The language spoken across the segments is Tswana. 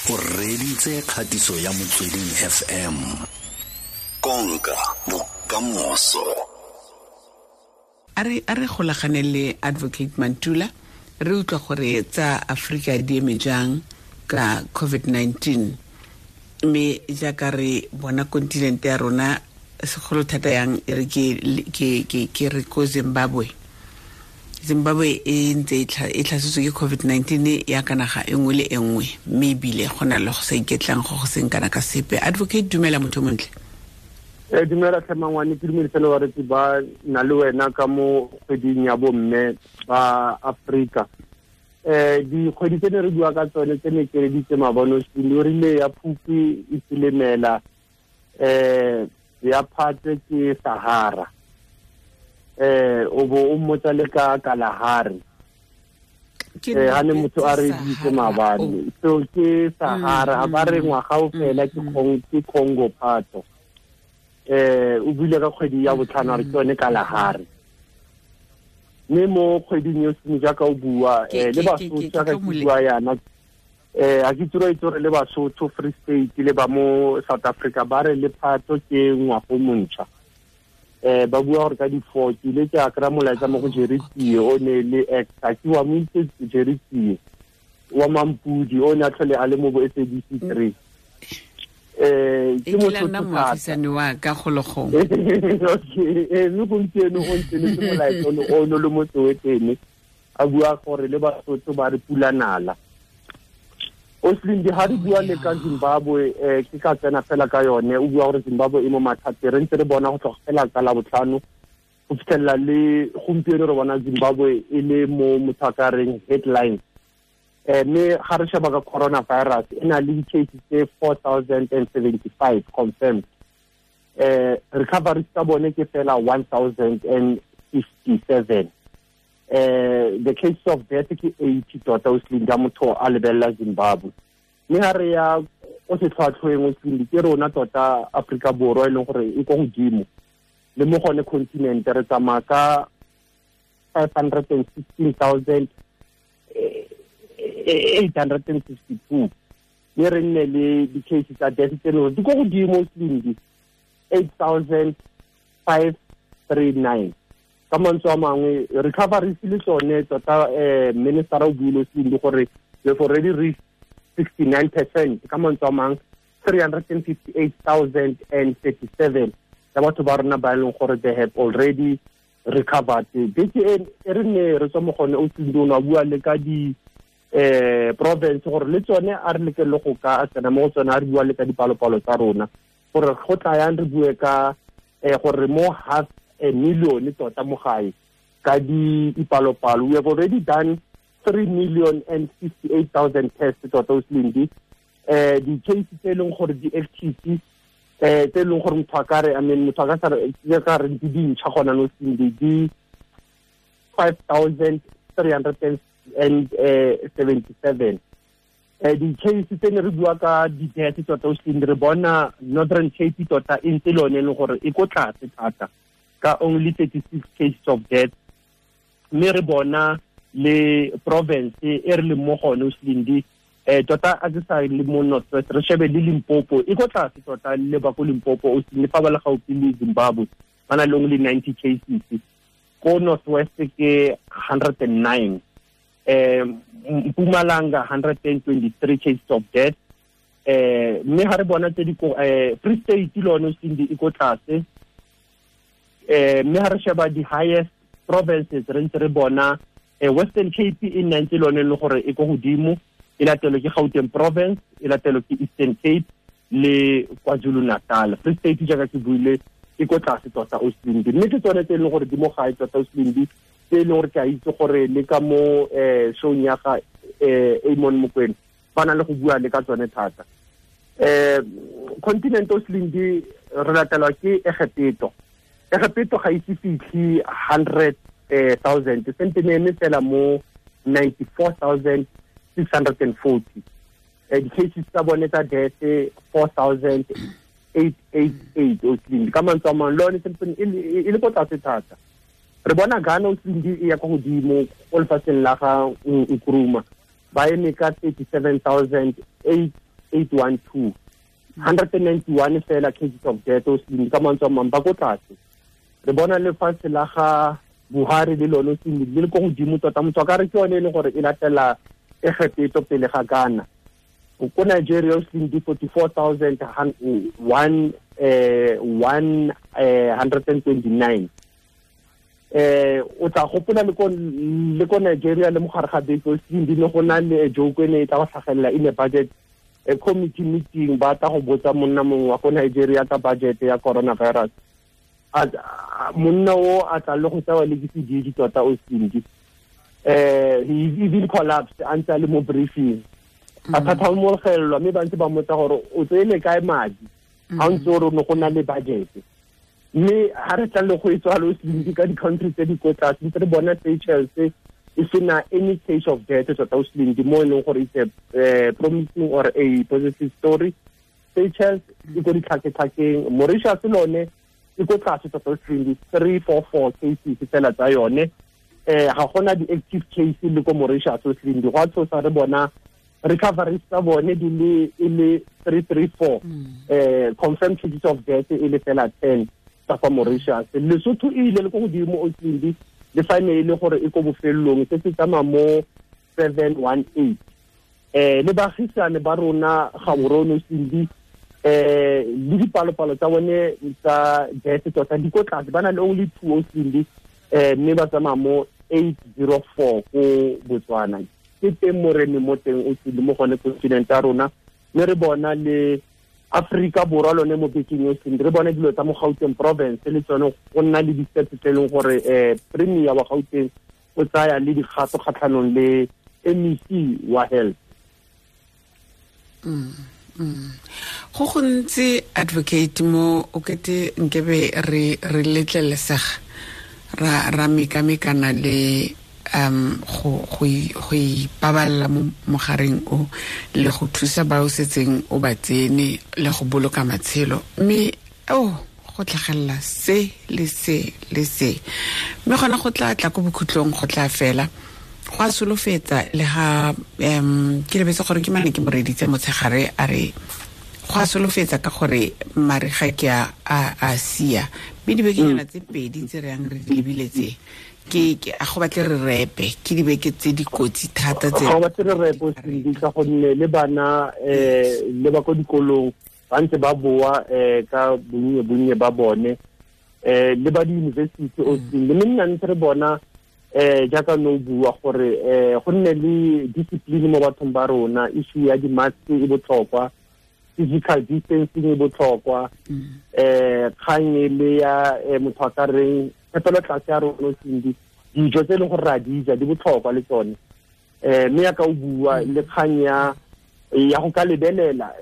O reditse kgatiso ya Motsweding FM. Konka bokamoso. A re golagane le Advocate Mantula, re utlwa gore tsa Afrika di eme jang ka COVID-19, mme jaaka re bona kontinente ya rona segolo thata yang e re ke re ko Zimbabwe. Zimbabwe e ntse e tlhasetswe ke COVID-19 ya ka naga e nngwe le e nngwe, mme ebile go na le go sa iketlang go go seng kana ka sepe. Advocate, dumela motho montle. Dumela tlhe mangwane, ke dumedise le baretsi ba na le wena ka mo kgweding ya bomme ba Afrika. Dikgwedi tse ne re bua ka tsone tse ne keleditse mabono, o rile ya Phukwi e Silimela, ya Phatwe ke Sahara, o bo o mmotsa le ka Kalahari. Ha ne motho a re ditse maabane, so ke Sahara, ha ba re ngwaga o fela ke Congo Phatho. O buile ka kgwedi ya botlhano a re ke yone Kalahari. Mme mo kgweding yo seng jaaka o bua, le Basotho jaaka ke bua yana, a ke tsoro itse gore le Basotho, Free State le ba mo South Africa ba re le Phatho ke ngwago montšha. Ba bua gore ka di-4 ke ile ke a kry-a molaetsa mo go Jerry Tsie, o ne le ex, a ke wa mo itse Jerry Tsie wa Mampudi, o ne a tlhole a le mo bo SABC 3. Ke motho nna moagisane wa ka gologong. Okay, mme gompieno o ntse le molaetsa o no le mo Soweto, a bua gore le Basotho ba re pula nala. Oslindi, ha re bua le ka Zimbabwe, ke ka tsena fela ka yone, o bua gore Zimbabwe e mo mathateng, re ntse re bona go tloga fela ka Labotlhano go fitlhelela le gompieno re bona Zimbabwe e le mo motho a ka reng headline. Mme ga re sheba ka coronavirus, e na le di-cases tse 4,075 confirmed. Recovery tsa bone ke fela 1,057. The case of death ke 80 tota Oslindi, ka motho a lebelela Zimbabwe. Mme ha re ya ko setlhwatlhweng Oslindi, ke rona tota Afrika Borwa e leng gore e ko godimo le mo gone continent, re tsamaya ka 516,862, mme re nne le di-case tsa death tse leng gore di ko godimo Oslindi, 8,539. Ka mantswe a mangwe, recovery le tsone tota, minister o buile Oslindi gore we have already reached 69%. Ka mantswe a mangwe, 358,037 ya batho ba rona ba e leng gore they have already recovered. Beke e re ne re tswa mo gone Oslindi, o ne a bua le ka di province gore le tsone a re leke le go ka tsena mo go tsone, a re bua le ka dipalopalo tsa rona gore go tla yang re bue ka gore mo half a million tota mo gae ka dipalopalo. We have already done 3,058,000 tests tota Oslindi. Di-case tse e leng gore di active, tse e leng gore motho a ka re, I mean, motho a ka sa re ka re di dintšha gona no Oslindi, di 5,377. Di-case tse ne re bua ka di-death tota Oslindi, re bona Northern Cape tota e ntse le yone e leng gore e ko tlase thata ka only 36 cases of death. Mme re bona le province e re leng mo gone Oslindi, tota a ke sa le mo North West, re shebe le Limpopo e ko tlase tota, le ba ko Limpopo Oslindi fa ba le gaufi le Zimbabwe ba na le only 90 cases, ko North West ke 109, Mpumalanga 123 cases of death. Mme ha re bona tse di ko Free State le yone Oslindi e ko tlase. Mme ha re sheba di highest provinces, re ntse re bona Western Cape e nna ntse le yone e le gore e ko godimo, e latelwe ke Gauteng province, e latelwe ke Eastern Cape le KwaZulu Natal. Free State jaaka ke buile e ko tlase tota Oslindi. Mme ke tsone tse e leng gore di mo gae tota Oslindi, tse e leng gore ke a itse gore le ka mo showng ya ga Amon Mokwena ba na le go bua le ka tsone thata. Continent Oslindi re latelwa ke Egepeto. Egepeto ga ise fitlhe 100,000, sentse ne eme fela mo 94,640. Di-cases tsa bone tsa death 4,888 Oslindi. Ka mantswe a mangwe le yone sentse e le ko tlase thata. Re bona Ghana Oslindi e ya ko godimo ko lefatsheng la ga Nkrumah, ba eme ka 37,8 812 191 fela cases of death o se ka mantswe a mang ba ko tlase. Re bona lefatshe la ga Buhari le lone se le ko godimo tota, motho a ka re ke yone e leng gore e latela Egepeto pele ga Ghana. Ko Nigeria o se di 44,129. O tla gopola le ko Nigeria le mogare ga beke o se di ne go na le joke e ne e tla go tlhagelela in a budget a committee meeting, ba tla go botsa monna mongwe wa ko Nigeria ka budget ya coronavirus. Monna o a tla le go tsewa le ke sedidi tota o sindi. He even collapsed a ntse a le mo briefing. A thathamologelwa mme ba ntse ba mmotsa gore o tseele kae madi ga o ntse o re ne go na le budget. Mme ha re tla le go e tswalo sindi ka di-country tse di ko tlase, ntse re bona Seychelles e sena any case of death tota o sindi, mo e leng gore it's a promising or a positive story. Seychelles e ko ditlhaketlhakeng, Mauritius lone e ko tlase tota o sindi, 344 cases fela tsa yone. Ga gona di-active case le ko Mauritius o sindi, go a tshosa re bona recoveries tsa bone di le e le 334, confirmed cases of death e le fela 10 tsa kwa Mauritius. Lesotho e ile le ko godimo o sindi, le fa ne e le gore e ko bofelelong se se tsamaya mo 718. Le baagisane ba rona Gaborone o sindi, le dipalopalo tsa bone tsa death tota di ko tlase, ba na le only 2 o sindi, mme ba tsamaya mo 804 ko Botswana. Ke teng mo re mo teng o sindi mo gone continent ya rona, mme re bona le Afrika Borwa lone mo bekeng o sindi, re bone dilo tsa mo Gauteng province le tsone go nna le di-steps tse e leng gore premier wa Gauteng o tsaya le dikgato kgatlhanong le MEC wa health. Go gontsi advocate mo o kete nkebe re letlelesega ra mekamekana le go ipaballa mo mogareng o le go thusa ba o setseng o ba tsene le go boloka matshelo, mme go tlhagelela se le se le se, mme gona go tla tla ko bokhutlong go tla fela go a solofetsa. Le ga ke lebetse gore ke mane ke moreditse motshegare a re go a solofetsa ka gore mariga ke a sia, mme dibekenyana tse pedi tse re yang re di lebile tse ke a go batle re repe, ke dibeke tse dikotsi thata tse go batle re repe sindi, ka gonne le bana le ba ko dikolong ba ntse ba boa ka bonnye bonnye ba bone, le ba di-university o sindi. Mme nna ntse re bona jaaka no bua gore go nne le discipline mo bathong ba rona, issue ya di-mask e botlhokwa, physical distancing e botlhokwa, kgang e le ya motho a ka reng phepelo tlase ya rona sindi, dijo tse e leng gore ra di ja di botlhokwa le tsone. Mme ya ka o bua le kgang ya go ka lebelela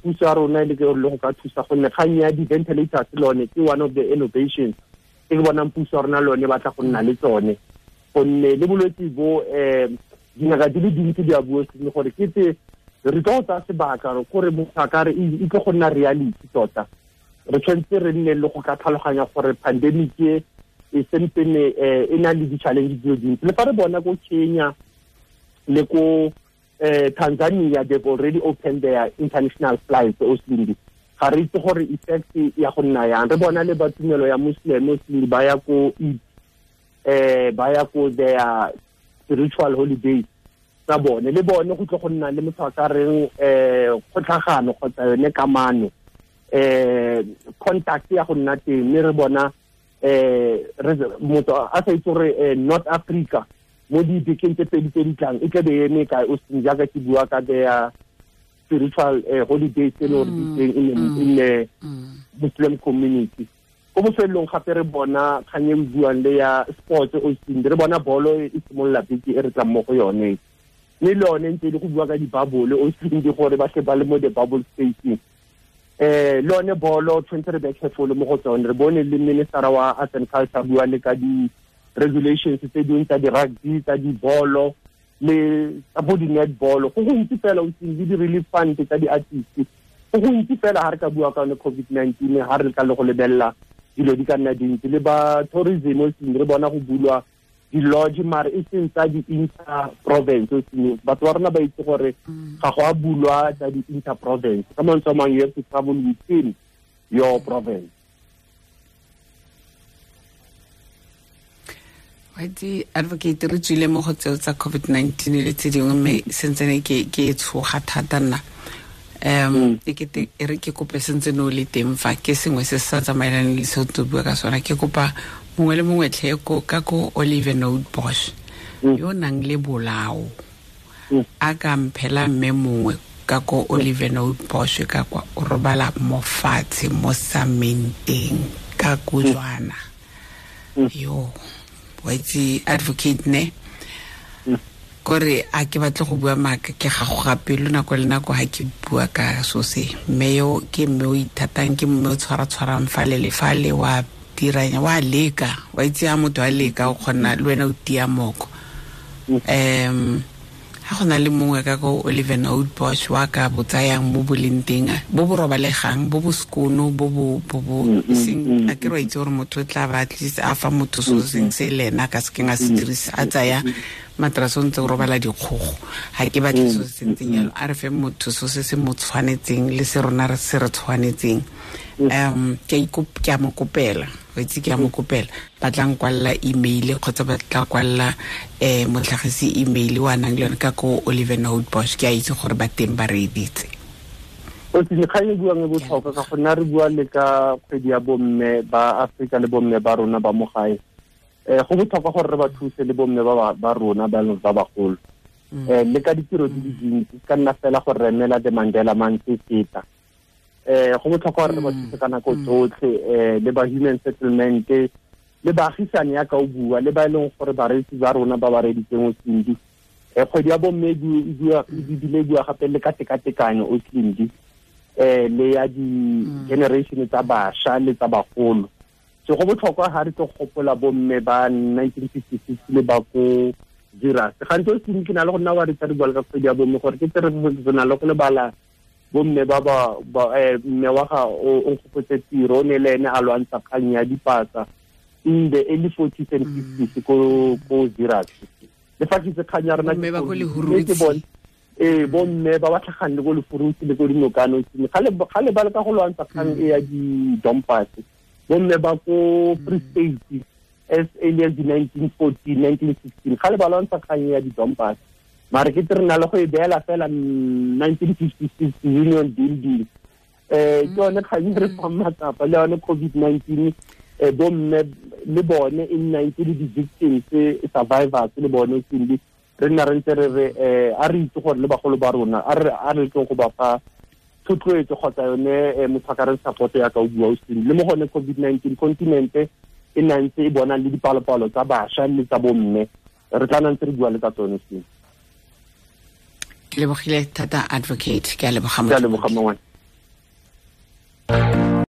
puso ya rona e le go ka thusa, gonne kgang ya di-ventilators lone ke one of the innovations e ke bonang puso ya rona lone ba tla go nna le tsone, gonne le bolwetse bo dingaka di le dintsi di a bua seng gore ke tse re tlo tsaya sebaka gore motho a ka re e tlo go nna reality tota. Re tshwanetse re nne le go ka tlhaloganya gore pandemic e sempene e na le di-challenge di le dintsi. Le fa re bona ko Kenya le ko Tanzania, they've already opened their international flights o sindi, ga re itse gore effect ya go nna yang. Re bona le ba tumelo ya Muslim o sindi ba ya ko Eid, ba ya ko their spiritual holidays tsa bone, le bone go tlo go nna le motho a ka reng kgotlhagano kgotsa yone kamano, contact ya go nna teng. Mme re bona motho a sa itse gore North Africa mo dibekeng tse pedi tse di tlang e tla be e eme kae o seng, jaaka ke bua ka their spiritual holidays tse le gore di teng in the Muslim community. Ko bofelelong gape re bona kgang e buang le ya sports o seng, re bona bolo e simolola beke e re tlang mo go yone, mme le yone ntse e le go bua ka di-bubble o seng, gore ba tle ba le mo the bubble spacing. Le yone bolo tshwanetse re be careful mo go tsone. Re bone le minister wa Arts and Culture bua le ka di-regulations tse dingwe tsa di-rugby, tsa dibolo le tsa bo di-netball. Go gontsi fela o seng, le di-relief fund tsa di-artist, go gontsi fela ha re ka bua ka yone COVID-19, ha re ka le go lebelela dilo di ka nna dintsi. Le ba tourism o seng, re bona go bulwa di-lodge mare e seng tsa di-inter province. Batho ba rona ba itse gore ga go a bulwa tsa di-inter province. Ka mantswe a mangwe, you have to travel within your province. Waitse advocate, re tswile mo go tseo tsa COVID-19 le tse dingwe, mme sentsene ke e tshoga thata nna. E kete e re ke kope sentse no le teng fa ke sengwe se se sa tsamaelaneng le seo tlo bua ka sona. Ke kopa mongwe le mongwe tlhe ka ko Oliver Note Bosch yo nang le bolao a ka mphela mme mongwe ka ko Oliver Note Bosch ka kwa o robala mo fatshe mo samenteng ka kojwana. Yo wa itse advocate ne kore a ke batle go bua maaka, ke gagoga pelo nako le nako ha ke bua ka so se. Mme yo ke mme o ithatang, ke mme o tshwara-tshwarang fale le fale, wa diranya, wa leka, wa itse ha motho a leka o kgona le wena o tia moko. Ha go na le mongwe ka ko Oliver Note Bosch wa ka botsayang mo boleng teng, bo bo robalegang, bo bo sekono, bo bo bo bo seng, a ke re wa itse gore motho o tla ba at least a fa motho so seng se le ena a ka sekeng a se dirisa, a tsaya matrase o ntse o robala dikgogo. Ha ke batle so se ntseng jalo, a re fe motho so se se mo tshwanetseng le se rona re se re tshwanetseng. Ke a mo kopela, wa itse ke a mo kopela, ba tla nkwalla email kgotsa ba tla kwalla motlhagisi email wa nang le yone ka ko Oliver Note Bosch. Ke a itse gore ba teng ba reeditse. O tsile kgang e buang e botlhokwa ka gonne re bua le ka kgwedi ya bomme ba Afrika le bomme ba rona ba mo gae. Go botlhokwa gore re ba thuse le bomme ba rona ba leng ba bagolo. Le ka ditiro di le dintsi, ka nna fela gore re emela the Mandela Month e feta. Go botlhokwa gore re ba thuse ka nako tsotlhe, le ba human settlement, le baagisane ya ka o bua, le ba e leng gore bareetsi ba rona ba ba reeditseng o Sindi. Kgwedi ya bomme e bile e bua gape le ka tekatekanyo o Sindi, le ya di-generation tsa bašwa le tsa bagolo. So go botlhokwa ha re tlo gopola bomme ba 1956 le ba ko Zeerust. Gantsi o Sindi ke na le go nna wa re tsa re bua le ka kgwedi ya bomme gore ke tse re na le go lebala bomme ba ba mme wa ga o nkgopotse tiro, o ne le ene a lwantsha kgang ya dipasa in the early 40s and 50s ko Zeerust. Le fa ke itse kgang ya rona Bomme ba ko ke Lehurutshe. bone. Bomme ba ba tlhagang le ko Lehurutshe le ko Dinokano, ga le ba leka go lwantsha kgang e ya di-dumpers. Bomme ba ko Free State as early as the 1914, 1916, ga le ba lwantsha kgang e ya di-dumpers. Mare ke re na le go e beela fela 1956 Union Building. Ke yone kgang e re fang matsapa le yone COVID-19, bomme le bone in 19 di-victims, survivors le bone Sindi. Re nna re ntse re re, a re itse gore le bagolo ba rona, a re tlong go ba fa thotloetso kgotsa yone, motho a ka re support ya ka o bua o Sindi. Le mo gone COVID-19 continent e nna ntse e bona le dipalopalo tsa bašwa le tsa bomme, re tla nna ntse re bua le tsa tsone Sindi. Ke lebogile thata advocate, ke a leboga Ke a leboga motho. mongwe.